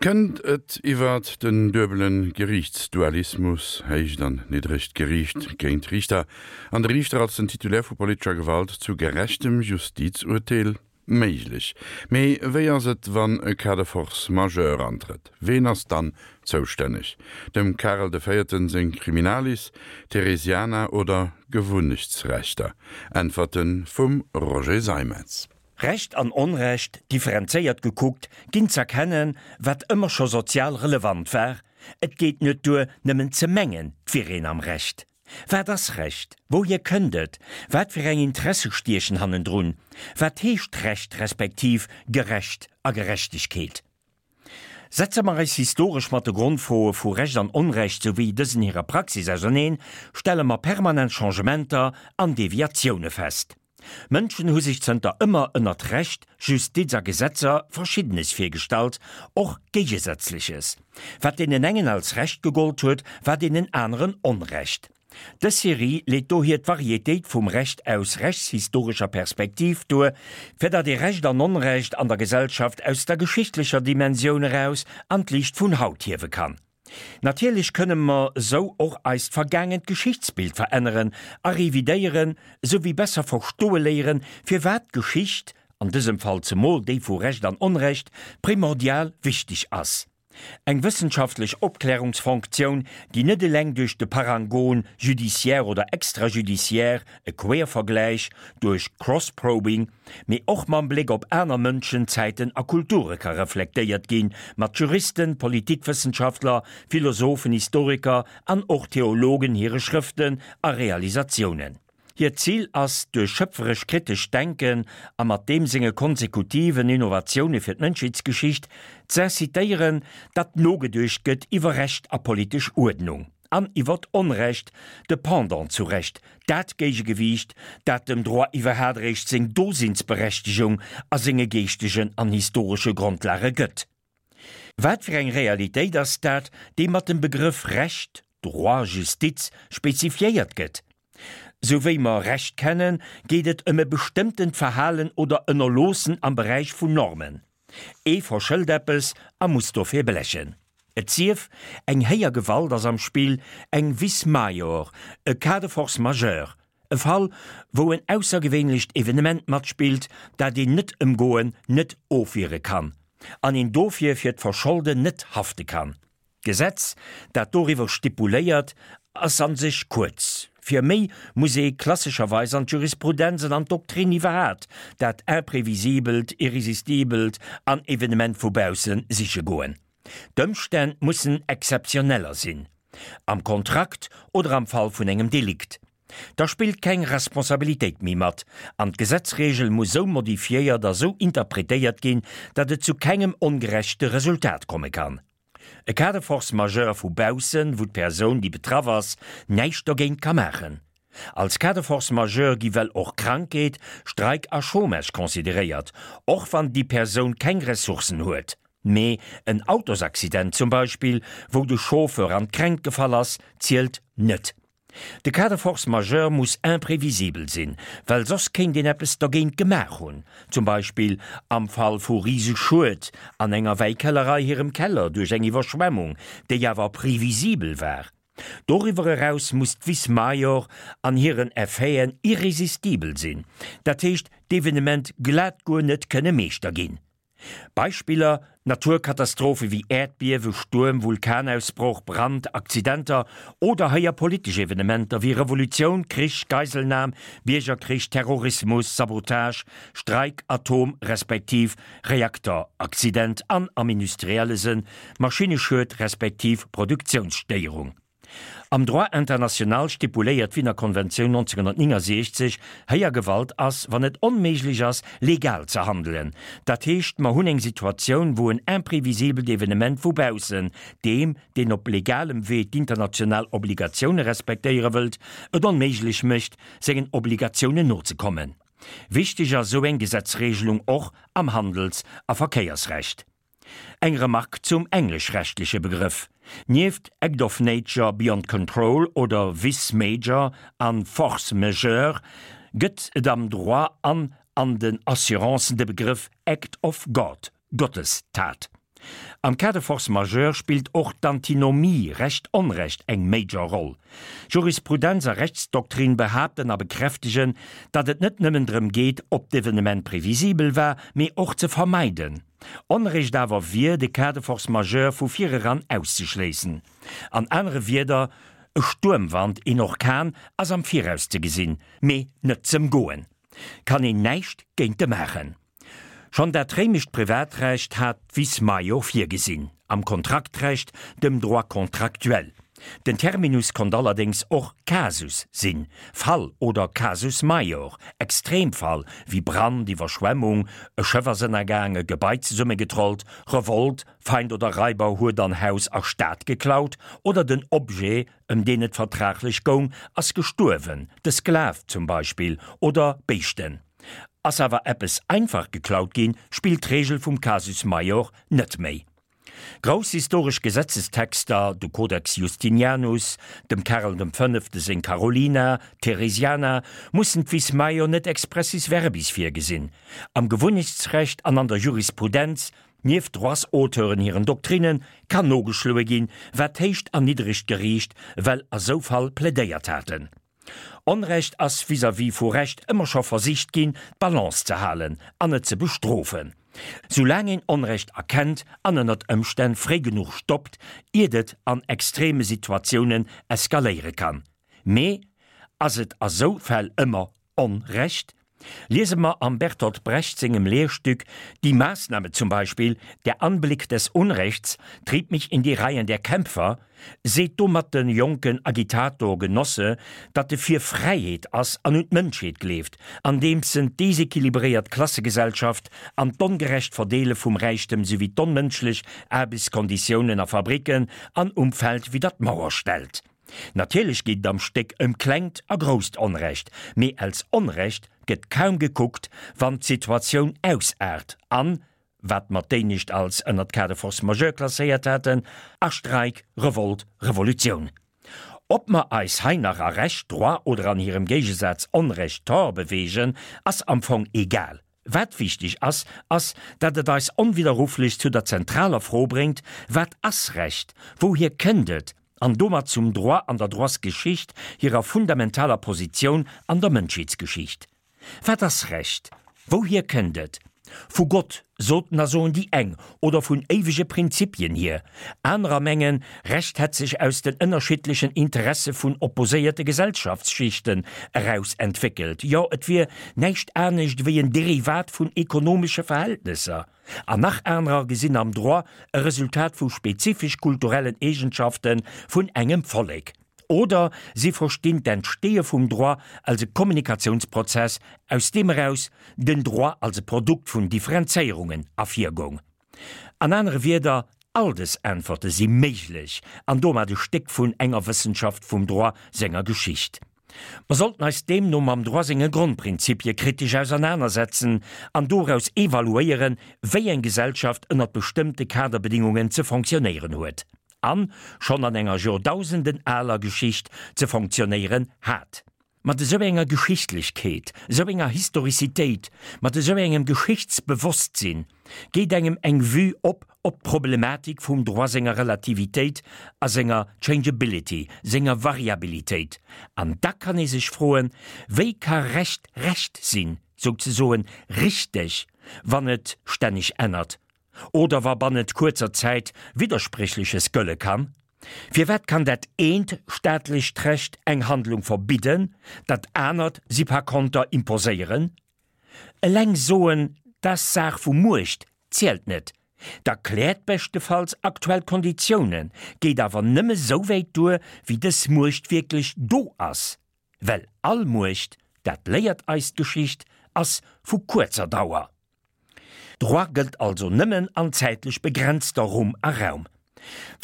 Kënnt et iwwert den duebele Geriichtsdualismus, héicht an niddregt Geriicht géint Riichter, an de Riichter als den Titulaire vu politescher Gewalt, zu gerechtem Justizurteel? Méiglech. Mee wéi ass et, wann e Cas de force majeure antrëtt? Ween ass dann zoustänneg? Dem Karel de Véierten seng Criminalis, Theresiana oder Gewunnechtsrechter? Äntwerte vum Roger Seimetz. Recht an Onrecht, differenzéiert gekuckt, ginn z'erkennen, wat ëmmer scho sozial relevant war, Et geet net duer, nëmmen ze mengen, 't wier een am Recht. Wat ass Recht? Wouhier kënnt et? Wat fir eng Interesse stiechen hannendrun? Wat heescht Recht respektiv gerecht a Gerechtegkeet? Setze mer eis historesch mat de Grondfroe vu Recht an Onrecht souwéi dësen hirer Praxis auserneen, stelle mer permanent Changementer an Deviatioune fest. Mënschen hu sech zënter ëmmer ënnert Recht, Justiz a Gesetzer Verschiddenes virgestallt, och Géigesätzleches. Wat deenen engen als Recht gegollt huet, war deenen aneren Onrecht. Dës Serie leet dohier d'Varietéit vum Recht aus rechtshistorescher Perspektiv duer, fir datt ee Recht an Onrecht an der Gesellschaft aus der geschichtlecher Dimensioun eraus an d'Liicht vun haut hiewe kann. Natierlech kënne mer sou och eist vergaangent Geschichtsbild veränneren a revidéieren, sou wéi besser verstoe léieren, firwat d'Geschicht, an dësem Fall zemol déi vu Recht an Onrecht, primordial wichteg ass. Eng wëssenschaftlech Opklärungsfonktioun, déi net eleng duerch de Parangon judiciaire oder extrajudiciaire, e Quervergläich, duerch Cross-Probing, mee och mam Bléck op aner Mënschen, Zäiten a Kulture ka reflektéiert ginn, mat Juristen, Politikwëssenschaftler, Philosophen, Historiker an och Theologen hire Schrëften a Realisatiounen. Hiert Zil ass, duerch schöpferesch kritescht Denken a mat deem senge konsekutiven Innovatioune fir d'Mënschheetsgeschicht z'incitéieren, datt nogeduecht gëtt iwwer Recht a politesch Uerdnung an iwwert Onrecht, de Pendant zu Recht, dat Géigegewiicht, dat dem Droit iwwerhaat eréischt seng Dosinnsberechtegung a senge geeschtegen an historesche Grondlage gëtt. Wat fir eng Realitéit ass dat, déi mat dem Begrëff Recht, Droit, Justiz, spezifiéiert gëtt? Sou wéi mer Recht kennen, geet et ëm e bestëmmtent Verhalen oder Ënnerloossen am Beräich vun Normen. Ee verschëlt eppes a muss dofir blechen. Et sief, eng héijer Gewalt ass am Spill, eng Vis maior, e Cas de force majeure, E Fall, wou en aussergewéinlecht Evenement matspillt, dat een net ëmgoen, net ofwiere kann, an een dofir fir d'Verscholden net hafte kann. D'Gesetz, dat doriwwer stipuléiert, ass a sech kuerz. Fir méi muss ee klassescherweis an d'Jurisprudenz an an d'Doktrin iwwerhat dat Imprévisibelt, Irresistibelt an Evenement vu bausse siche goen. D'Ëmstänn mussen exzeptioneller sinn, am Kontrakt oder am Fall vun engem Delikt. Da spillt keng Responsabilitéit méi mat, an d'Gesetzregel muss sou modifiéiert a sou interpretéiert ginn, datt et zu kengem ongerechte Resultat komme kann. E Cas de force majeure vu baussen, wou d'Persoun, déi betraff ass, näischt dogéint ka maachen. Als Cas de force majeure gi well och Krankheet, Streik a Chômage consideréiert, och wann déi Persoun keng Ressourcen huet. Mee en Autosaccident zum Beispill, wou de Chauffeur an d'Kränkt gefall ass, zielt net. De Cas de force majeure muss imprévisibel sinn, well soss kéint een eppes dergéint gemaach hunn, zum Beispill am Fall vu Riseschued an enger Wäikellerei hirem Keller duerch eng Iwwerschwemmung, déi awer previsibel war. Doriwwer eraus muss d'Vis maior an hiren Effeten irresistibel sinn, dat heescht d'Evenement glat guer net kënne Meeschter ginn. Beispiller, Naturkatastrophe wéi Äerdbiewe, Stuerm, Vulkanausbroch, Brand, Accidenter oder héier politesch Evenementer wéi Revolutioun, Krich, Geiselnam, Biergerkrich, Terrorismus, Sabotage, Streik, Atom respektiv Reakteraccident an am industrielle Sënn Maschinneschued respektiv Produktiounsstéierung. Am Droit international stipuléiert d'Wiener Konventioun 1969, Héijer Gewalt ass, wann et onméiglech ass, legal ze handelen. Dat heescht, mer hunn eng Situatioun, wou en imprévisibelt Evenement vu baussen deem, deen op legalem Wee d'international Obligatioune respektéiere wëllt, et onméiglech mécht, sengen Obligatiounen nozekommen. Wichteg ass esou eng Gesetzregelung och am Handels a Verkéiersrecht. Eng Remark zum engleschrechtleche Begrëff, Nieft Act of Nature beyond control oder Vice major an Force majeure gëtt et am Droit an an den Assurancen de Begrëff Act of God, Gottestat. Am Cas de force majeure spillt och d'Antinomie Recht-Onrecht eng major Roll. Jurisprudenz a Rechtsdoktrin behaapten a bekräftegen, datt et net nëmmen drëm geet, ob d'Evenement previsibel war, mee och ze vermeiden. Onrecht awer wier, de Cas de force majeure vu vireran auszeschléissen. An anere Wierder, E Stuermwand, een Orkan, ass am Viraus ze gesinn, mee net z'ëmgoen. Kann een näischt géinte maachen. Schonn dat réimescht Privatrecht hat d'Vis maior virgesinn, am Kontraktrecht, dem Droit contractuel. Den Terminus konnt allerdéngs och Casus sinn, Fall oder Casus maior, Extremfall wéi Brand, Iwwerschwemmung, e Schëff ass ënnergaang, e Gebai zesummegetrollt, Revolt, Feind oder Raiber huet an Haus a Stad geklaut, oder den Objet, ëm deen et vertraglech goung, ass gestuerwen, de Sklav zum Beispill, oder Béischten. Ass awer eppes einfach geklaut ginn, spillt d'Reegel vum Casus maior net méi. Grouss historesch Gesetzestexter, de Codex Justinianus, dem Karel dem Fënnefte seng Carolina, d'Theresiana, mussen d'Vis maior net expressis verbis virgesinn. Am Gewunnechtsrecht an an der Jurisprudenz, nieft Droitsauteuren hiren Doktrinnen, kann nogeschloe ginn, wat d'héicht an niddregt Geriicht well a sou Fall plädéiert haten. Onrecht ass vis-à-vis vu Recht ëmmer scho versicht ginn, d'Balance ze halen an net ze bestrofen. Soulaang een Onrecht erkennt an ënnert Ëmstänn fréi genuch stoppt, iert et an extreme Situatiounen eskaléiere kann. Mee ass et a sou Fäll ëmmer Onrecht? Liese mer am Bertolt Brecht sengem Lehrstück Die Maßnahme zum Beispiel, Der Anblick des Unrechts trieb mich in die Reihen der Kämpfer, seet domat de jonken Agitator Genosse, datt e fir Fräiheet ass an un d'Mënschheet gleeft, andeems en d'desequilibréiert Klassegesellschaft an d'ongerecht Verdeele vum Räichtem souwéi d'onmënschlech Aarbechtskonditiounen a Fabricken an um Feld widder d'Mauer stellt. Natierlech geet et am Stéck ëm klengt a grousst Onrecht, mee als Onrecht gëtt kaum gekuckt, wann d'Situatioun ausaart an, wat mer d'éinescht als ënnert Cas de force majeure klasséiert haten, a Streik, Revolt, Revolutioun. Ob mer eis hei nach a Recht, Droit, oder an hirem Géigesaz Onrecht, Tort, beweegen, ass am Fong egal. Wat wichteg ass, ass, datt et eis onwidderruflech zu der zentraler Fro bréngt, Wat ass Recht? Wouhier kënnt et? An domat zum Droit an der Droitsgeschicht hirer fundamentaler Positioun an der Mënschheetsgeschicht. Wat ass Recht? Wouhier kënnt et? Vu Gott, soten a soen déi eng, oder vun éiwege Prinzipien hier. Anerer mengen, Recht hätt sech aus den ënnerschiddlechen Interesse vun opposéierte Gesellschaftsschichten eraus entwéckelt, jo et wier näischt anescht ewéi en Derivat vun ekonomesche Verhältnesser. An nach anerer gesinn am Droit e Resultat vu spezifesch kulturellen Eegenschafte vun engem Vollek. Oder si verstinn d'Entsteeë vum Droit als e Kommunikatiounsprozess, aus deem eraus den Droit als e Produkt vun Differenzéierungen ervirgoung. An anere Wierder, all dës Äntwerte si méiglech an domat e Stéck vun enger Wëssenschaft vum Droit senger Geschicht. Mer sollten eis deemno mam Droit senge Grondprinzipie kritesch ausernanersetzen an doraus evaluéieren, wéi eng Gesellschaft ënnert bestëmmte Kaderbedingungen ze fonctionnéieren huet an schonn an enger Joerdausenden aler Geschicht ze fonctionnéieren hat. Mat esou enger Geschichtlechkeet, esou enger Historizitéit, mat esou engem Geschichtsbewosstsinn geet engem eng Vue op op d'Problematik vum Droit senger Relativitéit a senger Changeability, senger Variabilitéit. An da kann ee sech froen, Wéi ka Recht Recht sinn, souzesoen richteg, wann et stänneg ännert oder wa bannent kuerzer Zäit Widderspréchleches gëlle kann? Firwat kann dat eent staatlecht Recht eng Handlung verbidden, dat anert si par konter imposéieren? Eleng soen, 't ass Saach vu Muecht, zielt net. 't erkläert beschtefalls aktuell Konditiounen, geet awer nëmme souwäit duer, wéi dës Muecht wierklech do ass. Well all Muecht, dat léiert eis d'Geschicht, ass vu kuerzer Dauer. Droit gëllt also nëmmen an zäitlech begrenzter Rumm a Raum.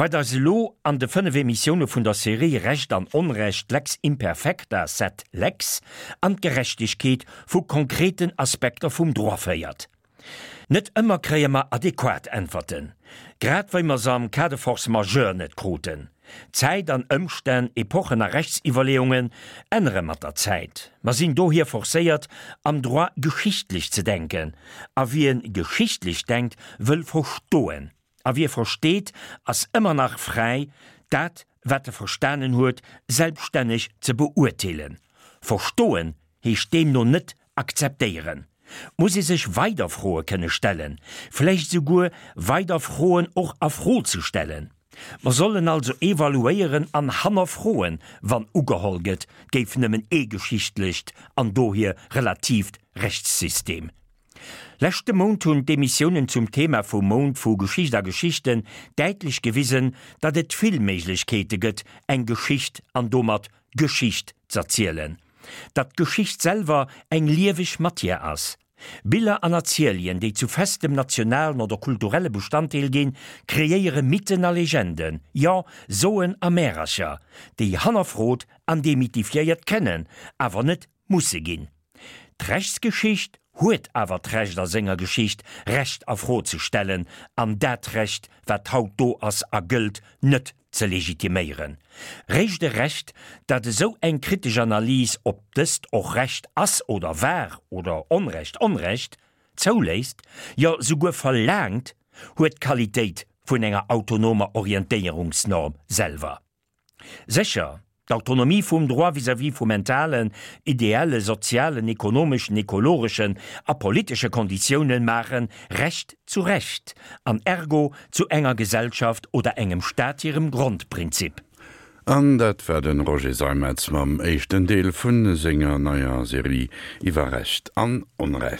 Wat eis elo an de 5 Emissioune vun der Serie Recht an Onrecht, Lex imperfecta sed lex, an d'Gerechtegkeet vu konkreten Aspekter vum Droit féiert. Net ëmmer kréie mer adequat Äntwerten, grad wéi mer se am Cas de force majeure net kruten. Zäit an Ëmstänn, Epochen a Rechtsiwwerleeungen ännere mat der Zäit. Mer sinn dohier forcéiert, am Droit geschichtlech ze denken. A wien geschichtlech denkt, wëll verstoen. A wie versteet, ass ëmmer nach fräi, dat, wat e verstanen huet, selbststänneg ze beurteelen. Verstoen heescht deemno net akzeptéieren. 't muss ee sech weider Froe kënne stellen, vläicht esouguer weider Froen och a Fro ze stellen. Mer sollen also evaluéieren an hannerfroen, wann ugeholl gëtt, 't géif nëmmen ee geschichtlecht an dohier relatiivt Rechtssystem. Leschte Mount hunn d'Emissiounen zum Thema vum Mount vu Geschicht a Geschichten däitlech gewisen, datt et vill Méiglechkeete gëtt, eng Geschicht an domat Geschicht z'erzielen. Datt d'Geschicht selwer eng lieweg Matière ass. Biller an Erzielien, déi zu festem nationalen oder kulturelle Bestanddeel ginn, kreéiere Mythen a Legenden, jo, Soen a Märercher, déi hannerfrot an demythifiéiert kënnen, awer net musse ginn. D'Rechtsgeschicht huet awer d'Recht a senger Geschicht, Recht a Fro ze stellen an dat Recht, wat haut do ass a gëllt, net ze legitiméieren. Réischt e Recht, dat esou eng kritesch Analys, ob dëst och Recht ass oder war oder Onrecht Onrecht, zouléisst, jo souguer verlaangt, huet d'Qualitéit vun enger autonomer Orientéierungsnorm selwer. Sécher, d'Autonomie vum Droit vis-à-vis vu mentalen, ideelle, sozialen, ekonomeschen, ekologeschen a politesche Konditiounen maachen Recht zu Recht an ergo zu enger Gesellschaft oder engem Staat hirem Grondprinzip. An dat war de Roger Seimetz mam éischten Deel vu senger neier Serie iwwer Recht an Onrecht.